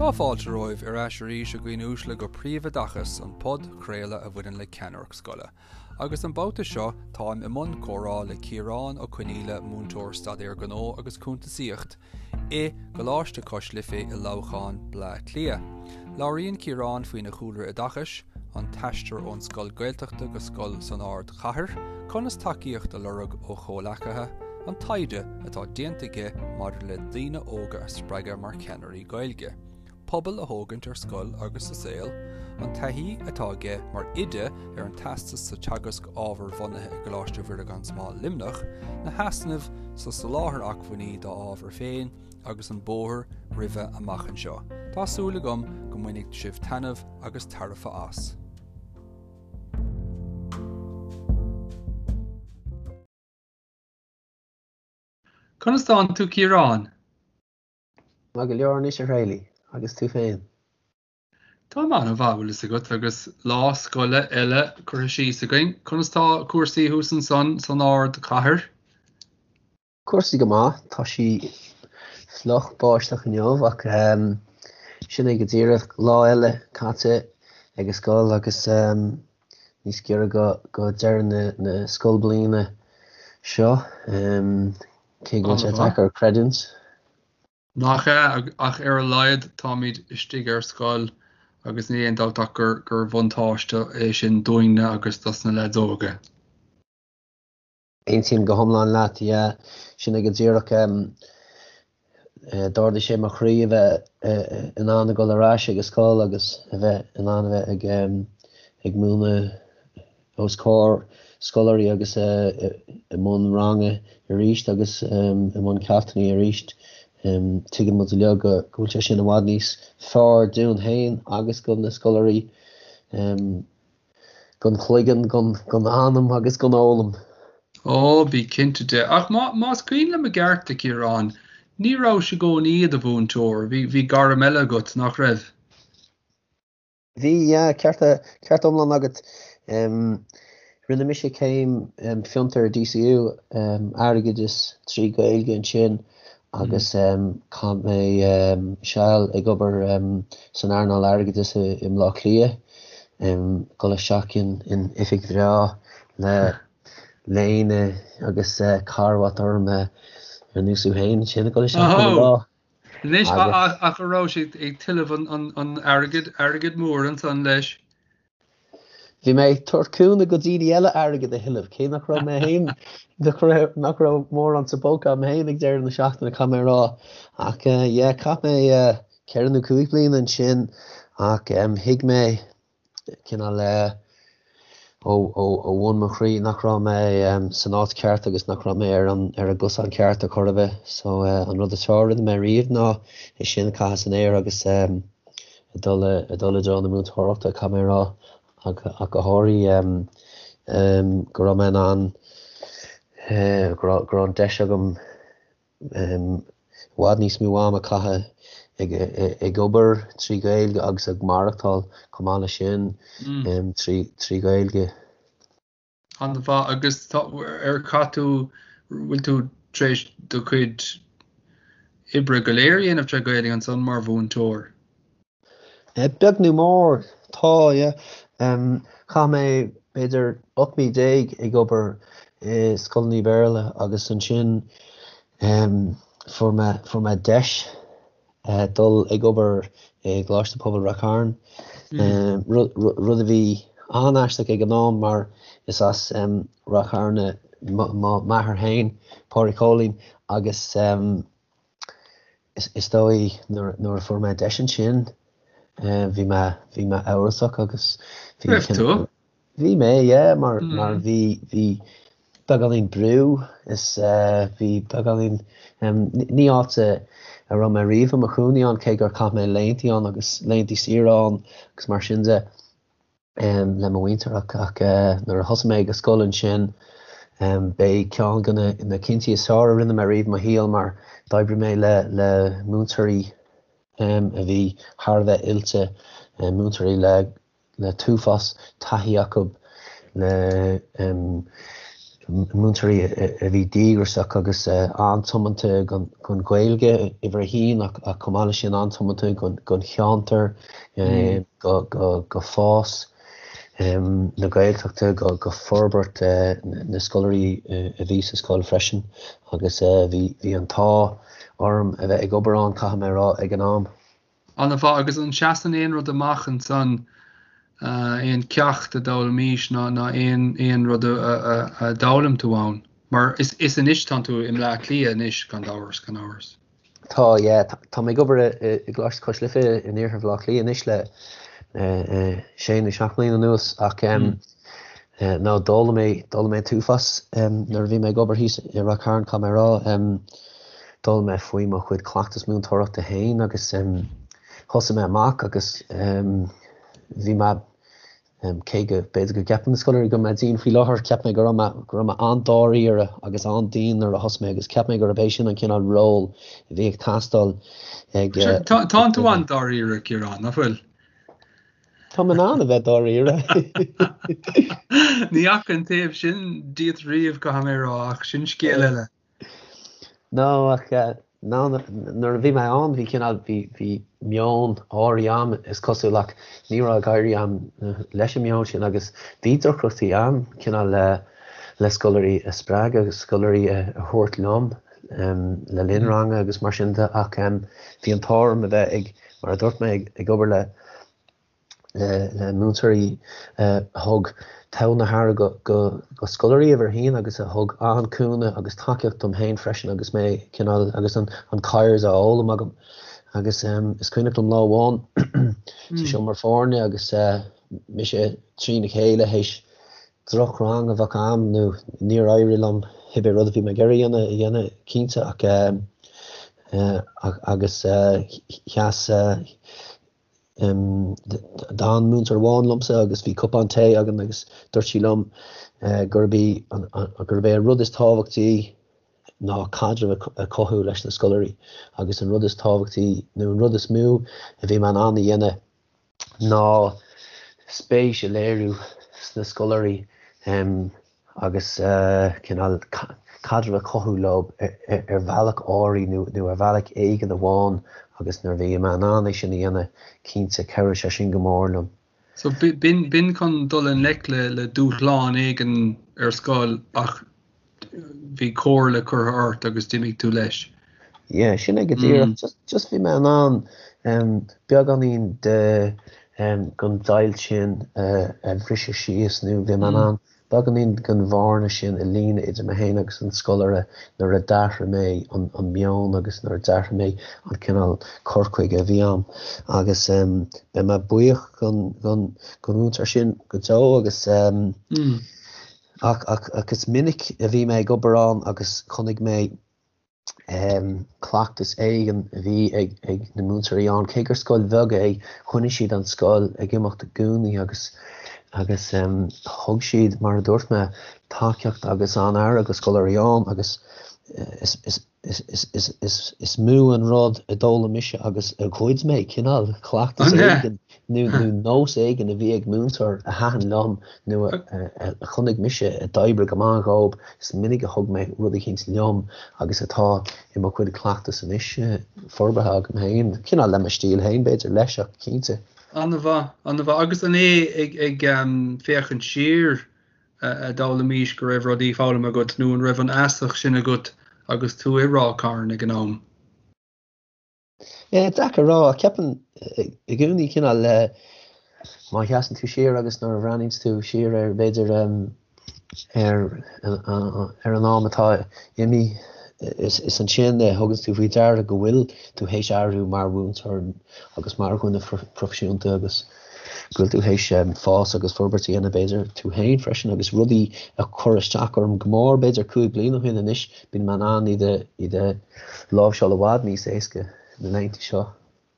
Tá fáilte romhaibh ar ais arís a dhaoine uaisle go Príomhoideachas, an podchraoladh a bhaineann le ceannaireacht scoile. Agus an babhta seo táim i mbun comhrá le Ciarán Ó Conaola, múinteoir Staidéar Gnó agus Cuntasaíocht i gColáiste Cois Life i Leamhcán, Bleá Cliath. Labhraíonn Ciarán faoina chúlra oideachais, an t-aistear ón scoil Gaeltachta go scoil san ardchathair, conas tacaíocht a lorg ó chomhleacaithe, an taighde atá déanta aige maidir le daoine óga a spreagadh mar cheannairí Gaeilge, pobal a thógaint ar scoil agus sa saol, an taithí atá aige mar oide ar an teastas sa teagasc ábhar-bhunaithe i gColáiste Mhuire gan Smál Luimneach, na heasnaimh sa soláthar acmhainní dá ábhar féin agus an bóthar roimhe amach anseo. Tá súil agam go mbainfidh sibh taitneamh agus tairbhe as. Conas tánn tú Ciarán? Maith go leor anois a Thraolaigh, agus tú féin? Táim an-mhaith, bhfuil fhios agat, agus lá scoile eile curtha síos againn. Conas tá cúrsaí thuas ansan san ardchathair? Cúrsaí go maith, tá sí fliuch báisteach inniu ach sin é go díreach, lá eile caite ag an scoil agus níos giorra go deireadh na scoilbliana seo, cé go bhfuil sé deacair creidiúint. Nach ea, ach ar a laghad táimid istigh ar scoil agus níl aon dabht ach gur bhuntáiste é sin dúinne agus dos na leaids óga. Aontaím go hiomlán leat, yeah. Sin é go díreach. D'ardaigh sé mo chroí a bheith in ann a dhul ar ais ag an scoil agus a bheith in ann a bheith ag ag múineadh os comhair scoláirí agus i mbun ranga arís agus i mbun ceachtanna arís. Tuigeann muid uilig go bhfuil sé sin i bhfad níos fearr dúinn féin agus do na scoláirí. Gan chloigeann, gan anam agus gan fhoghlaim. Ó, bí cinnte de. Ach más cuimhin liom i gceart, a Chiaráin, ní rabhais i gcónaí i do mhúinteoir, bhí gairm eile agat, nach raibh? Bhí, yeah, ceart, ceart iomlán agat. Rinne mise céim fiontair i DCU, airgeadas 3 Gaeilge ansin agus chaith mé seal ag obair san earnáil airgeadais i mBleá Cliath, dul isteach in oifig bhreá le léine agus carbhat orm ar nós thú féin ansin ag dul isteach chuile lá. Anois ach an raibh sé ag tuilleamh an airgid, airgead mór ansan leis? Bhí mé ag tabhairt cúnamh go daoine eile airgead a thuilleamh, cé nach raibh mé féin, nach raibh, nach raibh mórán sa bpóca agam féin ag deireadh na seachtaine, caithfidh mé a rá. Ach yeah, chaith mé ceithre nó cúig bliana ansin ach thuig mé cineál ó, ó, ó bhun mo chroí nach raibh mé san áit cheart agus nach raibh mé ar an, ar an gcosán ceart ar chor ar bith. So an rud is fearr a rinne mé riamh ná é sin a chaitheamh san aer agus ag dul i dtreo na múinteoireachta, caithfidh mé a rá, ach go háirithe go raibh mé in ann, go raibh an deis agam i bhfad níos mó ama a chaitheamh ag obair trí Ghaeilge agus ag maireachtáil chomh maith leis sin trí Ghaeilge. An-mhaith. Agus tá, ar chaith tú, bhfuil tú tar éis do chuid oibre go léir a dhéanamh tré Ghaeilge ansan mar mhúinteoir? Beag nó mór, tá, yeah. Chaith mé b'fhéidir 18 mí ag obair i scoileanna Béarla agus ansin fuair mé, fuair mé deis dul ag obair i gColáiste Pobail Ráth Chairn, rud a bhí an-aisteach ag an am mar is as Ráth Chairn m'athair féin, Pádraig Chóilín, agus is dóigh nuair a fuair mé deis ansin bhí mé bhí mé amhrasach agus bhí Raibh tú? Bhí mé, yeah, mar mar bhí bhí beagáinín brú is bhí beagáinín ní áit a raibh mé riamh i mo chónaí ann cé gur chaith mé laethanta ann agus laethanta saoire ann agus mar sin de le mo mhuintir ach ach nuair a thosaigh mé ag an scoil ansin b'é ceann de na cinntí is fearr a rinne mé riamh i mo shaol mar d'oibrigh mé le le múinteoirí a bhí thar a bheith oilte, múinteoirí le le t-uafás taithí acu, le. Múinteoirí a bhí díograiseach agus an-tiomanta don Ghaeilge, uimhir a haon, ach chomh maith leis sin an-tiomanta don cheantar, go fás na Gaeltachta, go forbairt na scoláirí a bhí sa scoil freisin agus bhí an t-ádh orm a bheith ag obair ann, caithfidh mé a rá, ag an am. An-mhaith, agus an seasann aon rud amach ansan, aon ceacht a d'fhoghlaimís ná ná aon aon rud a a d'fhoghlaim tú ann? Mar is is anois tánn tú i mBleá Cliath anois gan amhras, gan amhras. Tá, yeah. Tá mé ag obair i i gColáiste Cois Life in iarthar Bhaile Átha Cliath anois le sé nó seacht mbliana anuas ach no d'fhoghlaim mé d'fhoghlaim mé an t-uafás nuair a bhí mé ag obair thíos i Ráth Cairn, caithfidh mé a rá. D'fhoghlaim mé faoi mo chuid cleachtas múinteoireachta féin agus thosaigh mé amach agus bhí mé, cé go b'fhéidir go gceapann na scoláirí go bhfuil mé dian faoi láthair, cheap mé go raibh mé, go raibh mé an-dáiríre agus an-dian nuair a thosaigh mé agus cheap mé gurb é sin an cineál ról a bhí ag teastáil ag. Tánn tú an-dáiríre, Ciarán, nach bhfuil? Tá mé in ann a bheith dáiríre. Ní fhaca an taobh sin díot riamh, caithfidh mé a rá, ach sin scéal eile. No, ach no, nuair a bhí mé ann bhí cineál, bhí, bhí meon áirithe a'm is cosúil ach ní raibh ag éirí a'm leis an meon sin agus bhí deacrachtaí a'm cineál le, le scoláirí a spreagadh agus scoláirí a thabhairt liom le linn ranga agus mar sin de ach bhí an t-ádh orm a bheith ag, mar a dúirt mé, ag obair le, le múinteoirí a thug togha na haire do scoláirí uimhir a haon agus a thug an-chúnamh agus tacaíocht dom féin freisin agus mé cineál agus an CIRES á fhoghlaim agam. Agus is cuimhneach liom lá amháin sa seomra foirne agus mise trína chéile théis drochrang a bheith a'm nó níor éirigh liom cibé rud a bhí mé ag iarraidh a dhéanamh a dhéanamh cinnte ach agus sheas D'fhan múinteoir amháin liomsa agus bhí cupán tae againn agus dúirt sí liom gurb í gurb é an rud is tábhachtaí ná caidreamh a chothú leis na scoláirí agus an rud is tábhachtaí nó an rud is mó a bhí mé in ann a dhéanamh ná spéis a léiriú sna scoláirí. agus cineál caidreamh a chothú leo ar bhealach áirithe nó ar bhealach éigin amháin agus nuair a bhí mé in ann é sin a dhéanamh, cinnte, chabhraigh sé sin go mór liom. So b'in chun dul i ngleic le dúshlán éigin ar scoil ach bhí comhairle curtha ort agus d'imigh tú leis. Yeah, sin é go díreach. Just, just bhí mé in ann beagáinín de den deighilt sin a bhriseadh síos nó bhí mé in ann beagáinín den bhearna sin a líonadh idir mé féin agus an scoláire nuair a d'athraigh mé an meon agus nuair a d'athraigh mé an cineál cur chuige a bhí a'm. Agus beidh mé buíoch don mhúinteoir sin go deo agus ach ach is minic a bhí mé ag obair ann agus chonaic mé cleachtas éigin a bhí ag na múinteoirí ann. Cé gur scoil bheag é, choinnigh siad an scoil ag imeacht i gcónaí agus agus thug siad, mar a dúirt mé, tacaíocht agus an-aire do scoláirí ann agus is is is is is is mó an rud a d'fhoghlaim mise agus a ghoid mé, cineál cleachtas éigin nó nós éigin a bhí ag múinteoir a thaitin liom nó a chonaic mise a d'oibrigh go maith dhób, is minic a thug mé rud eicínt liom agus atá i mo chuid cleachtas anois, forbartha agam féin, cineál le mo stíl féin b'fhéidir leis ach cinnte. An-mhaith, an-mhaith. Agus an é ag ag féachaint siar a d'fhoghlaimís go raibh rudaí foghlamtha agat nó an raibh an fheasacht sin agat agus tú i Ráth Cairn ag an am? Yeah, deacair a rá, ach ceapaim i gcónaí cineál le má sheasann tú siar agus nuair a bhreathnaíonns tú siar ar b'fhéidir ar ar an am atá imithe is is ansin a thuganns tú faoi deara go bhfuil tú théis athrú mar mhúinteoir agus mar dhuine proifisiúnta agus go bhfuil tú théis fás agus forbairt a dhéanamh b'fhéidir tú féin freisin agus rudaí a chuir isteach orm go mór b'fhéidir 5 bliana ó shin anois Bíonn mé in ann iad a iad a láimhseáil i bhfad níos éasca na laethanta seo.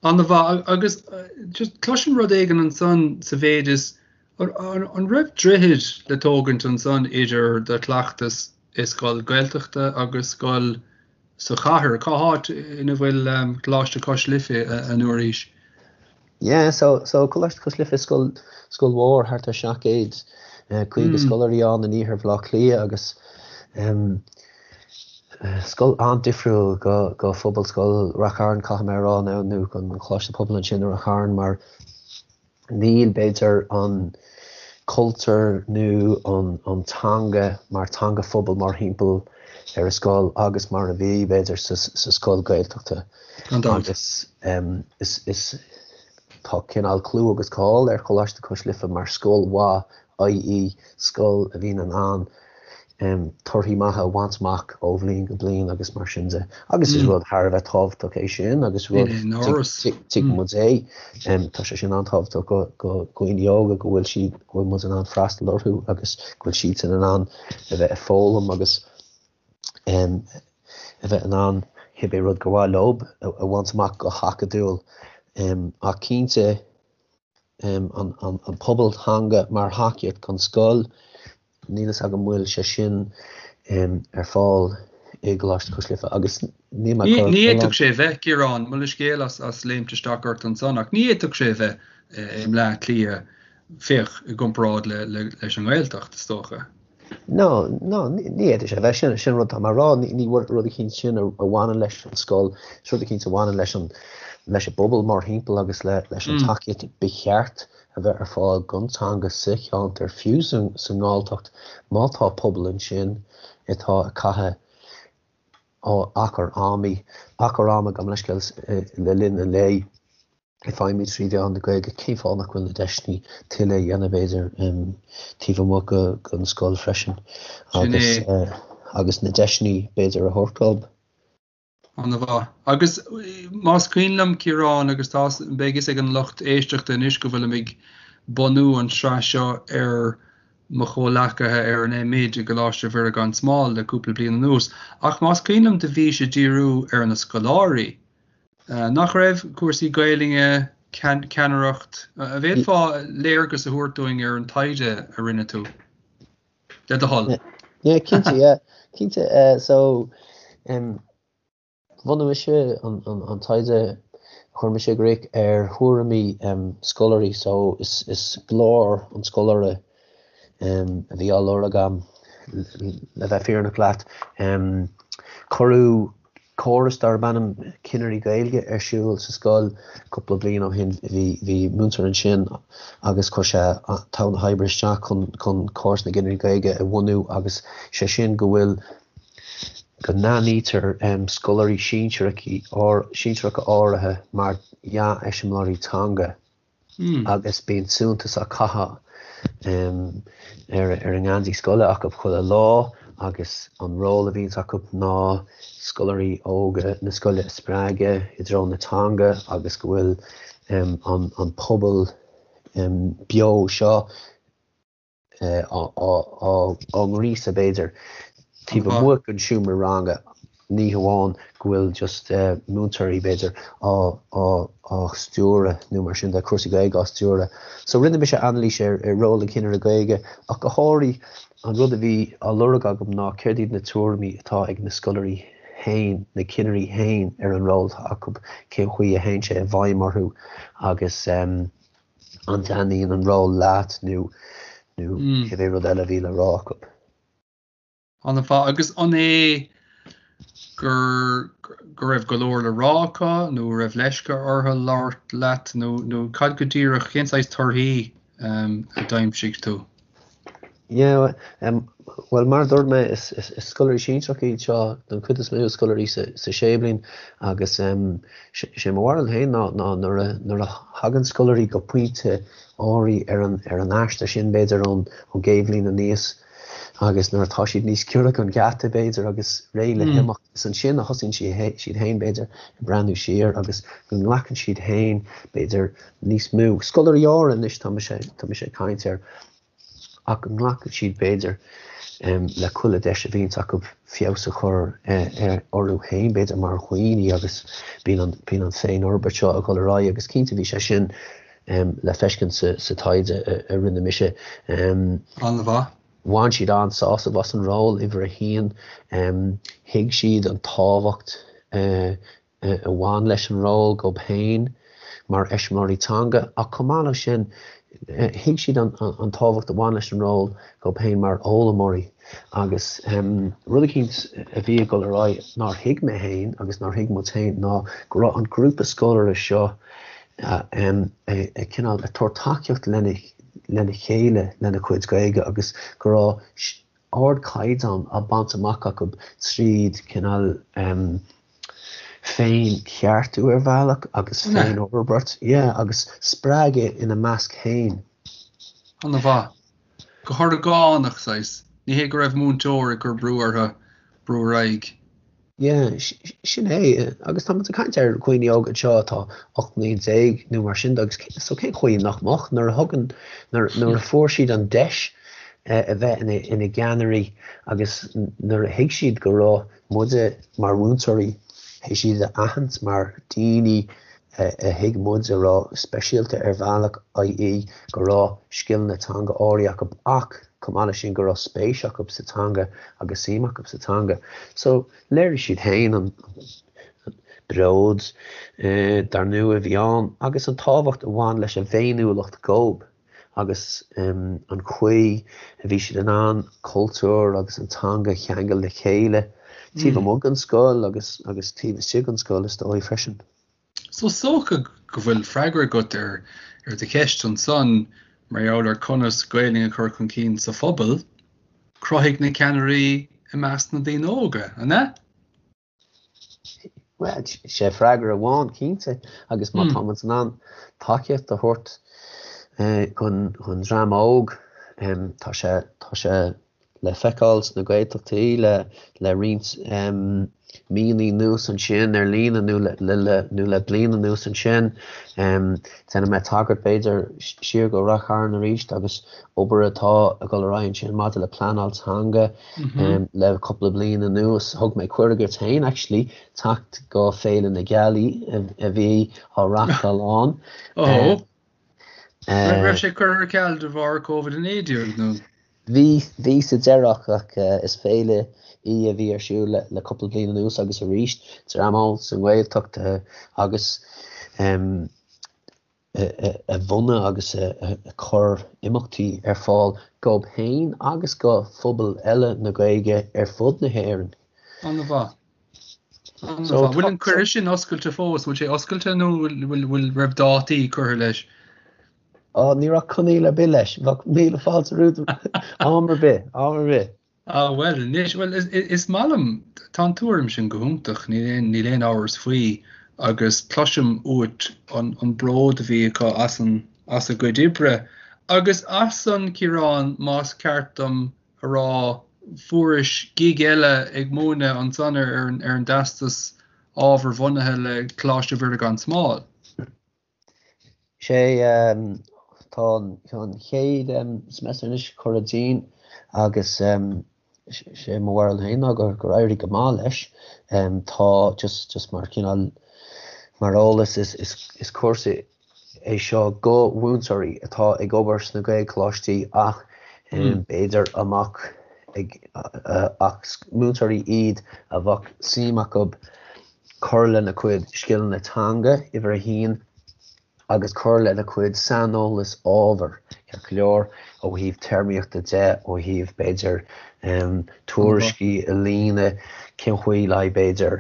An-mhaith. Agus just cloisim rud éigin ansan sa mhéid is an raibh droichead le tógaint ansan idir do chleachtas i scoil Gaeltachta agus scoil sa chathair? Cá háit ina bhfuil Coláiste Cois Life an uair seo? Yeah, so so Coláiste Cois Life scoil scoil mhór thart ar 750 scoláirí ann in iarthar Bhaile Átha Cliath agus. Scoil an-difriúil go Phobalscoil Rath Chairn, caithfidh mé a rá, nó nó an Coláiste Pobail ansin i Rath Chairn mar níl, b'fhéidir, an cultúr nó an teanga mar teanga phobail mórthimpeall ar an scoil agus mar a bhí, b'fhéidir, sa scoil Gaeltachta. Agus is tá cineál clú agus cáil ar Choláiste Cois Life mar scoil mhaith, i.e. scoil a bhíonn in ann torthaí maithe a bhaint amach ó bhliain go bliain agus mar sin de. Agus is rud thar a bheith tábhachtach é sin agus rud tuigeann muid é. Tá sé sin an-tábhachtach go dhaoine óga go bhfuil siad, go bhfuil muid in ann freastal orthu agus go bhfuil siadsan in ann a bheith ag foghlaim agus a bheith in ann cibé rud gur mhaith leo a bhaint amach go hacadúil. Ach cinnte, an pobal teanga mar thacaíocht don scoil, níl fhios agam an bhfuil sé sin ar fáil i gColáiste Cois Life agus níl mé ag cur. Ní fhéadfadh sé a bheith, Ciarán, mo leithscéal as léimt isteach ort ansan, ach ní fhéadfadh sé a bheith i mBleá Cliath, féach, i gcomparáid leis an nGaeltacht, is dócha. No, no, ní fhéadfadh sé a bheith. Sin, sin rud atá mé a rá. Ní, ní rud eicínt sin a bhaineann leis an scoil, is rud eicínt a bhaineann leis an, leis an bpobal mórthimpeall agus le, leis an tacaíocht ba cheart a bheith ar fáil don teanga sa cheantar, fiú sa, sa nGalltacht, má tá pobal ansin atá ag caitheamh achar ama, achar ama, gabh mo leithscéal, le linn an lae. ag feidhmiú 3 mheán na Gaeilge, cén fáth nach bhfuil na deiseanna tuilleadh a dhéanamh, b'fhéidir, taobh amuigh den scoil freisin agus agus na deiseanna, b'fhéidir, a thabhairt dóibh. An-mhaith. Agus más cuimhin liom, Ciarán, agus tá, beidh fhios ag an lucht éisteachta anois go bhfuilim ag bunú an tsraith seo ar mo chomhleacaithe ar an M.Oid i gColáiste Mhuire gan Smál le cúpla bliain anuas, ach más cuimhin liom do bhís ag díriú ar na scoláirí. Nach raibh cúrsaí Gaelainne, ceannaireacht, an bhféadfá léargas a thabhairt dúinn ar an taighde a rinne tú, le do thoil? Yeah, cinnte, yeah. Cinnte, so, bhunaigh mise an taighde a chuir mise i gcrích ar thuairimí scoláirí, so is glór an scoláire a bhí á lorg agam, le bheith fírinneach leat. Cuireadh córas darb ainm Cinnirí Gaeilge ar siúl sa scoil cúpla bliain ó shin. Bhí bhí múinteoir ansin agus chuir sé togha na hoibre isteach chun chun córas na gCinnirí Gaeilge a bhunú agus sé sin go bhfuil go n-aithnítear scoláirí sinsearacha áirithe mar dhea-eiseamláirí teanga. agus bíonn suntas á chaitheamh ar ar an ngeansaí scoile acu chuile lá agus an ról a bhíonns acu ná scoláirí óga na scoile a spreagadh i dtreo na teanga agus go bhfuil an an pobal beo seo á ngríosadh, b'fhéidir, taobh amuigh den seomra ranga, ní hamháin go bhfuil just múinteoirí, b'fhéidir, á stiúradh nó mar sin de, cúrsaí Gaeilge á stiúradh. So rinne mise anailís ar ról an chinnire Gaeilge ach go háirithe an rud a bhí á lorg agam ná céard iad na tuairimí atá ag na scoláirí féin, na cinnirí féin ar an ról atá acu, cén chaoi a théann sé i bhfeidhm orthu agus. an dtaitníonn an ról leat nó nó cibé rud eile a bhí le rá acu. An-mhaith. Agus an é gur go raibh go leor le rá acu nó raibh leisce orthu labhairt leat nó nó cad go díreach, cén saghas torthaí a d'aimsigh tú? Yeah, bhuel mar a dúirt mé is scoláirí sinsearacha iad seo don chuid is mó, scoláirí sa séú bliain agus sé mo bharúil féin ná ná nuair a nuair a thagann scoláirí go pointe áirithe ar an ar an aistear sin b'fhéidir ón ón gcéad bhliain aníos agus nuair atá siad níos giorra don gheata b'fhéidir agus réidh le himeacht is ansin a thosaíonn siad siad féin b'fhéidir ag breathnú siar agus go nglacann siad féin b'fhéidir níos mó scoláirí áirithe anois tá mise tá mise ag caint air ach go nglacann siad b'fhéidir le chuile deis a bhíonns acu feabhas a chur orthu féin b'fhéidir mar dhaoine agus bíonn an bíonn an féinfhorbairt seo ag dul ar aghaidh agus cinnte bhí sé sin le feiscint sa sa taighde a rinne mise. An-mhaith. Bhain siad an-sásamh as an ról, uimhir a haon. Thuig siad an tábhacht a bhain leis an ról dóibh féin mar eiseamláirí teanga ach chomh maith leis sin. Thuig siad an tábhacht a bhain leis an ról dhóibh féin mar fhoghlaimeoirí agus rud eicínt a bhí ag dul ar aghaidh nár thuig mé féin agus nár thuig muid féin ná go raibh an grúpa scoláirí seo ag cineál ag tabhairt tacaíocht lena chéile lena cuid Gaeilge agus go raibh ardchaighdeán á baint amach acu tríd cineál féin-cheartú ar bhealach agus féin-fhorbairt, yeah, agus spreagadh ina measc féin. An-mhaith. Go horgánach, saghas. Ní hé go raibh múinteoir ag cur brú orthu brú ar aghaidh. Yeah, sin é. Agus tá muid ag caint ar dhaoine óga anseo atá 18 mbliain nó mar sin de agus so cén chaoi nach mbeadh nuair a thugann, nuair a fuair siad an deis a bheith ina gceannairí agus nuair a thuig siad go raibh muide mar mhúinteoirí, théis iad a aithint mar daoine a thuig muid a raibh speisialta ar bhealach, i.e. go raibh scileanna teanga áirithe acu ach chomh maith leis sin go raibh spéis acu sa teanga agus suim acu sa teanga. So léirigh siad féin an bród dar ndóigh a bhí ann agus an tábhacht a bhain leis an bhféiniúlacht dhóibh agus an chaoi a bhí siad in ann cultúr agus an teanga a cheangal le chéile taobh amuigh den scoil agus agus taobh istigh den scoil is dóigh freisin. So is dócha go bhfuil freagra agat ar ar do cheist ansan mar gheall ar conas Gaelainn a chur chun cinn sa phobal, cruthaigh na ceannairí i measc na daoine óga, an ea? Bhuel, sé freagra amháin cinnte agus má tá muid in ann tacaíocht a thabhairt don dream óg, tá sé, tá sé le feiceáil sna Gaeltachtaí le le roinnt míonna anuas ansin ar líne nó nó le bliain anuas ansin. Déanfaidh mé tagairt b'fhéidir siar go Rath Chairn arís agus obair atá ag dul ar aghaidh ansin maidir le pleanáil teanga le cúpla bliain anuas. Thug mé cuireadh duit féin actually teacht go Féile na Gealaí a bhí á reachtáil ann. Raibh sé curtha ar ceal de bharr Covid-19 nó? Bhí, bhí sa deireadh ach is féile í a bhí ar siúl le cúpla bliain anuas agus arís dream óg sa nGaeltacht agus a bhunaigh agus a chuir imeachtaí ar fáil dhóibh féin agus go phobail eile na Gaeilge ar fud na hÉireann. An-mhaith. So, bhfuil an cuireadh sin oscailte fós? Bhfuil sé oscailte nó bhfuil raibh dátaí curtha leis? Á, ní raibh coinníoll ar bith leis. Bheadh míle fáilte romhat am ar bith, am ar bith. Á, bhuel, anois, bhuel, is maith liom, tá an tuairim sin go hiontach, níl aon, níl aon amhras faoi agus cloisim uait an, an bród a bhí acu as an, as a gcuid oibre agus as san, Ciarán, más ceart dom a rá, fuairis gig eile ag múineadh ansan ar ar an dTeastas Ábharbhunaithe le Coláiste Mhuire gan Smál. Sé tá an chéad semester anois curtha dínn agus sé mo bharúil féin ná gur éirigh go maith leis. Tá just just mar cineál mar eolas is is cúrsa é seo go mhúinteoirí atá ag obair sna Gaelcholáistí ach b'fhéidir amach ag ach múinteoirí iad a bheadh suim acu cur lena cuid scileanna teanga, uimhir a haon, agus cur lena cuid saineolas ábhair, ceart go leor, ó thaobh téarmaíochta de, ó thaobh b'fhéidir tuairiscí a líonadh, cén chaoi le b'fhéidir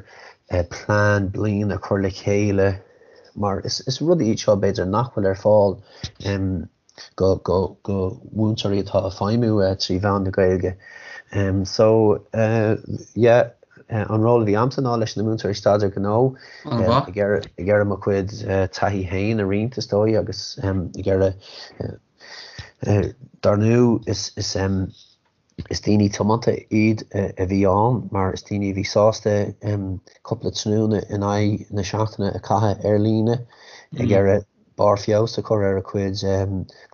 plean bliana a chur le chéile. mar is rudaí iad seo b'fhéidir nach bhfuil ar fáil go go go mhúinteoirí atá ag feidhmiú trí mheán na Gaeilge. So yeah an ról a bhí a'msa ná leis na múinteoirí staidéar gnó ag iarraidh mo chuid taithí féin a roinnt is dóigh agus ag iarraidh dar ndóigh is is Is daoine tiomanta iad a bhí ann mar is daoine a bhí sásta cúpla tráthnóna in aghaidh na seachtaine a chaitheamh ar líne ag iarraidh barr feabhas a chur ar a cuid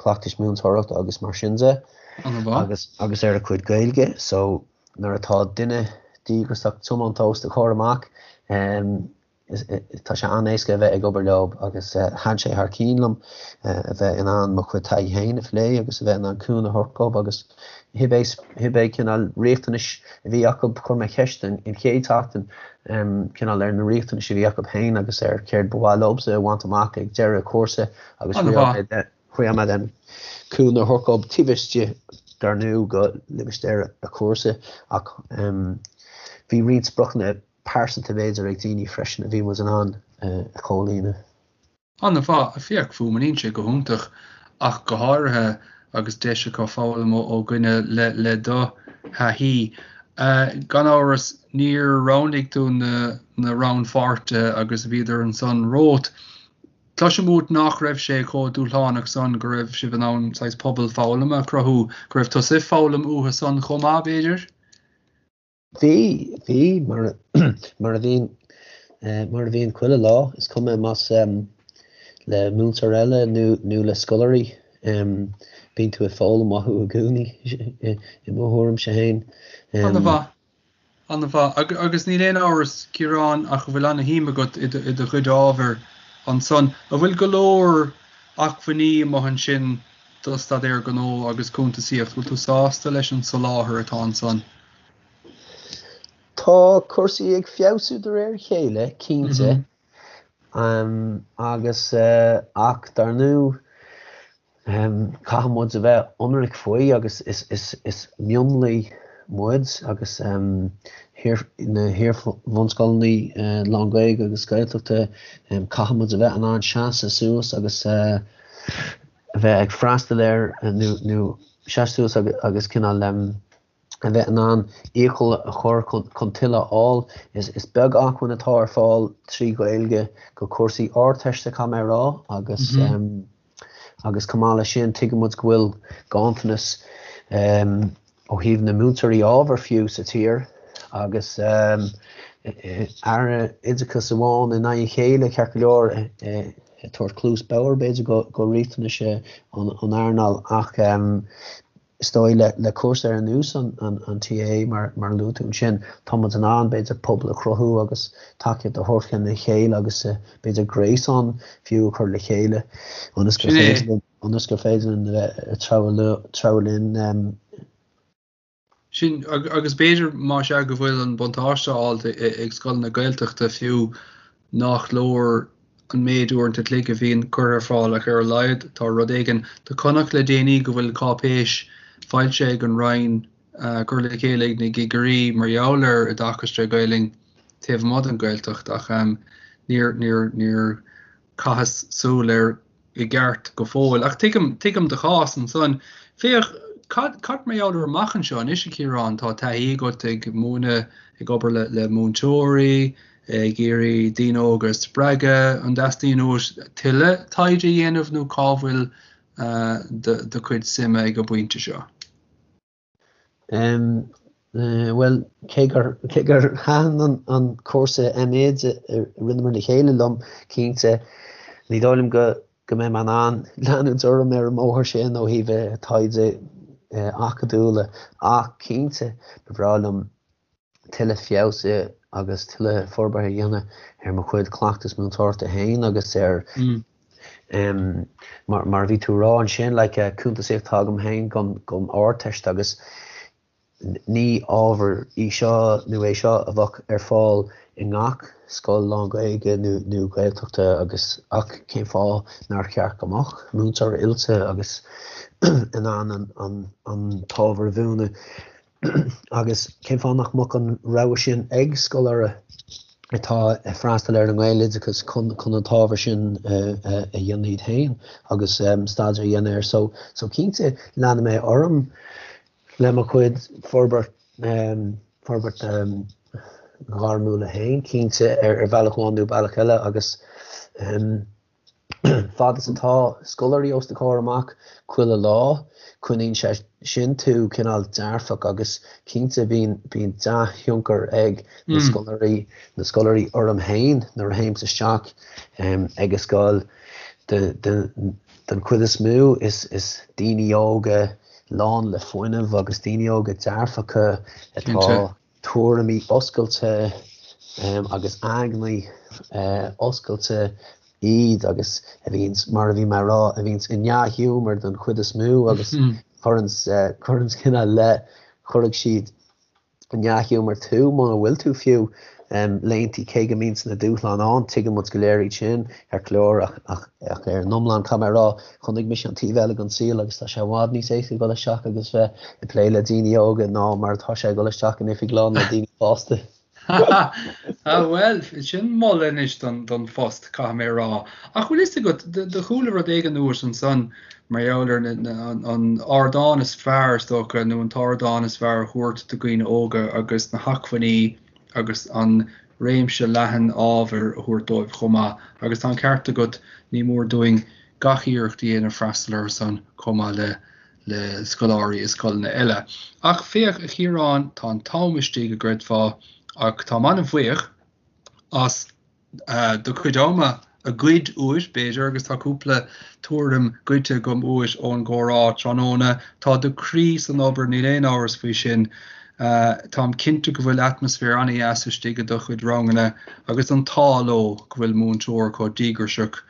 cleachtais múinteoireachta agus mar sin de agus agus ar a cuid Gaeilge. So nuair atá duine díograiseach tiomanta os do chomhair amach Tá sé an-éasca a bheith ag obair leo agus thaitin sé thar cinn liom a bheith in ann mo chuid taithí féin a phlé agus a bheith in ann cúnamh a thabhairt dóibh agus cibé cibé cineál riachtanais a bhí acu, chuir mé ceist an chéad tseachtain cineál ar na riachtanais a bhí acu féin agus ar céard ba mhaith leobsa a bhaint amach ag deireadh cúrsa agus thriail mé. Caithfidh mé cúnamh a thabhairt dóibh taobh istigh dar ndóigh de limistéar an chúrsa ach bhí roinnt spriocanna pearsanta b'fhéidir ag daoine freisin a bhí muid in ann a chomhlíonadh. An-mhaith, féach, fuaimníonn sé go hiontach ach go háirithe agus deis acu foghlaim ó dhuine le do thaithí. Gan amhras, níor roghnaigh tú na rannpháirtithe agus bhíodar ansan romhat. Cloisim uait nach raibh sé chomh dúshlánach san, go raibh sibh in ann saghas pobal foghlama a chruthú, go raibh tusa ag foghlaim uathu san chomh maith, b'fhéidir? Bhí, bhí, mar, mar a bhíonn, mar a bhíonn chuile lá, is cuma más le múinteoir eile nó, nó le scoláirí, bíonn tú ag foghlaim uathu i gcónaí, i mo thuairimse féin. An-mhaith, an-mhaith. Agus níl aon amhras, Ciarán, ach go bhfuil ana-shuim agat i do chuid ábhair ansan. An bhfuil go leor acmhainní amuigh ansin do staidéar gnó agus cuntasaíocht? Bhfuil tú sásta leis an soláthar atá ansan? Tá cúrsaí ag feabhsú de réir a chéile, cinnte, agus ach dar ndóigh caithfidh muid a bheith ionraic faoi agus is mionlaigh muid agus na hiar-bhunscoileanna lán-Ghaeilge agus Gaeltachta, caithfidh muid a bheith in ann seasamh suas agus a bheith ag freastal ar nó seasamh suas agus cineál a bheith in ann iachall a chur chun tuilleadh a fháil. Is beag acmhainn atá ar fáil trí Ghaeilge do chúrsaí Ardteiste, caithfidh mé a rá, agus agus chomh maith leis sin tuigeann muid go bhfuil ganntanas ó thaobh na múinteoirí ábhair fiú sa tír agus Aire Oideachais amháin i ndiaidh a chéile, ceart go leor, ag tabhairt cluas bhodhar b'fhéidir do riachtanais an earnáil ach Is dóigh le cúrsa ar nós an TA mar a luaigh tú ansin, tá muid in ann b'fhéidir pobal a chruthú agus tacaíocht a thabhairt lena chéile agus b'fhéidir gréasán fiú a chur le chéile ionas gur féidir linn ionas gur féidir linn a bheith ag treabhadh linn. Sin, agus b'fhéidir más ea go bhfuil an buntáiste á fháilt ag scoileanna Gaeltachta fiú nach leor an méid uaireanta an chloig a bhíonn curtha ar fáil ach ar a laghad tá rud éigin. Do chonac le déanaí go bhfuil cáipéis foilsithe ag an Roinn curtha le chéile ag na cigirí mar gheall ar oideachas tré Ghaelainn taobh amuigh den Ghaeltacht ach níor, níor, níor chaitheas súil air i gceart go fóill. Ach tuigim, tuigim do chás ansan. Féach, cad, cad mar gheall ar amach anseo anois, a Chiaráin? Tá taithí agat ag múineadh, ag obair le, le múinteoirí, ag iarraidh daoine óga a spreagadh. An dteastaíonn uait tuilleadh taighde a dhéanamh nó cá bhfuil do, do chuid suime ag an bpointe seo? Bhuel, cé gur cé gur thaitin an an cúrsa M.Ed a rinneamar le chéile liom, cinnte, ní dóigh liom go go mbeidh mé in ann leanúint orm ar an mbóthar sin ó thaobh taighde acadúla ach cinnte, ba bhreá liom tuilleadh feabhsaithe agus tuilleadh forbartha a dhéanamh ar mo chuid cleachtas múinteoireachta féin agus ar mar mar a bhí tú a rá ansin like cuntasaíocht atá agam féin don don Ardteist agus ní ábhar í seo nó é seo a bheadh ar fáil i ngach scoil lán-Ghaeilge nó nó Gaeltachta agus ach cén fáth nár cheart go mbeadh múinteoir oilte agus in ann an an an t-ábhar a mhúineadh Agus cén fáth nach mbeadh an rogha sin ag scoláire atá ag freastal ar an nGaeloideachas chun chun an t-ábhar sin a dhéanamh iad féin agus staidéar a dhéanamh air. So so cinnte leanfaidh mé orm le mo chuid forbairt forbairt ghairmiúla féin cinnte ar ar bhealach amháin nó bealach eile agus Fad is atá scoláirí os do chomhair amach chuile lá, coinníonn sé sin tú cineál dearfach agus cinnte bíonn bíonn dea-thionchar ag na scoláirí na scoláirí orm féin nuair a théimse isteach ag an scoil. Den chuid is mó is is daoine óga lán le fuinneamh agus daoine óga dearfacha atá tuairimí oscailte agus aigne oscailte iad agus a bhíonns, mar a bhí mé a rá, a bhíonns i ndea-ghiúmar don chuid is mó agus cuireanns, cuireanns cineál le, cuirfidh siad i ndea-ghiúmar tú muna bhfuil tú fiú. laethanta cé go mbíonns na dúshláin ann, tuigeann muid go léir iad sin ceart go leor ach ach ach ar an iomlán caithfidh mé a rá chonaic mise an taobh eile den saol agus tá sé i bhfad níos éasca dul isteach agus bheith ag plé le daoine óga ná mar atá sé dul isteach in oifig lán le daoine fásta. Ah bhuel, sin moladh anois don phost, caithfidh mé a rá. Ach bhfuil fhios agat, do chuala rud éigin uait ansan mar gheall ar an ardán is fearr, is dócha, nó an t-ardán is fearr a thabhairt do dhaoine óga agus na hacmhainní agus an réimse leathan ábhair a thabhairt dóibh chomh maith. Agus tá an ceart agat, ní mór dúinn gach iarracht a dhéanamh freastal orthu san chomh maith le le scoláirí i scoileanna eile. Ach féach, a Chiaráin, tá an t-am istigh, a gcreidfeá, ach táim an-bhuíoch as do chuid ama a ghoid uait, b'fhéidir, agus tá cúpla tuairim goidte agam uait ón gcomhrá tráthnóna. Tá do chroí san obair, níl aon amhras faoi sin. Táim cinnte go bhfuil atmaisféar an-dheas istigh i do chuid ranganna agus an t-ádh leo go bhfuil múinteoir chomh díograiseach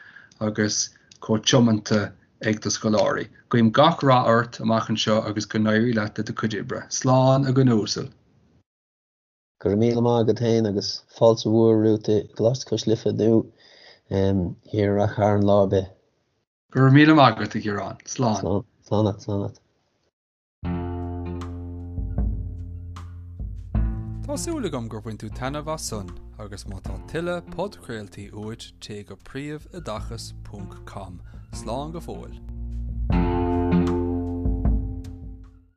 agus chomh tiomanta ag do scoláirí. Guím gach rath ort amach anseo agus go n-éirí leat le do chuid oibre. Slán, a dhuine uasail. Go raibh míle maith agat féin agus fáilte mhór romhat i gColáiste Cois Life nó thiar i Rath Chairn lá ar bith. Go raibh míle maith agat, a Chiaráin. Slán. Slán. Slán leat, slán leat. Tá súil agam gur bhain tú taitneamh as san agus má tá tuilleadh podchraoltaí uait téigh go príomhoideachas ponc com. Slán go fóill.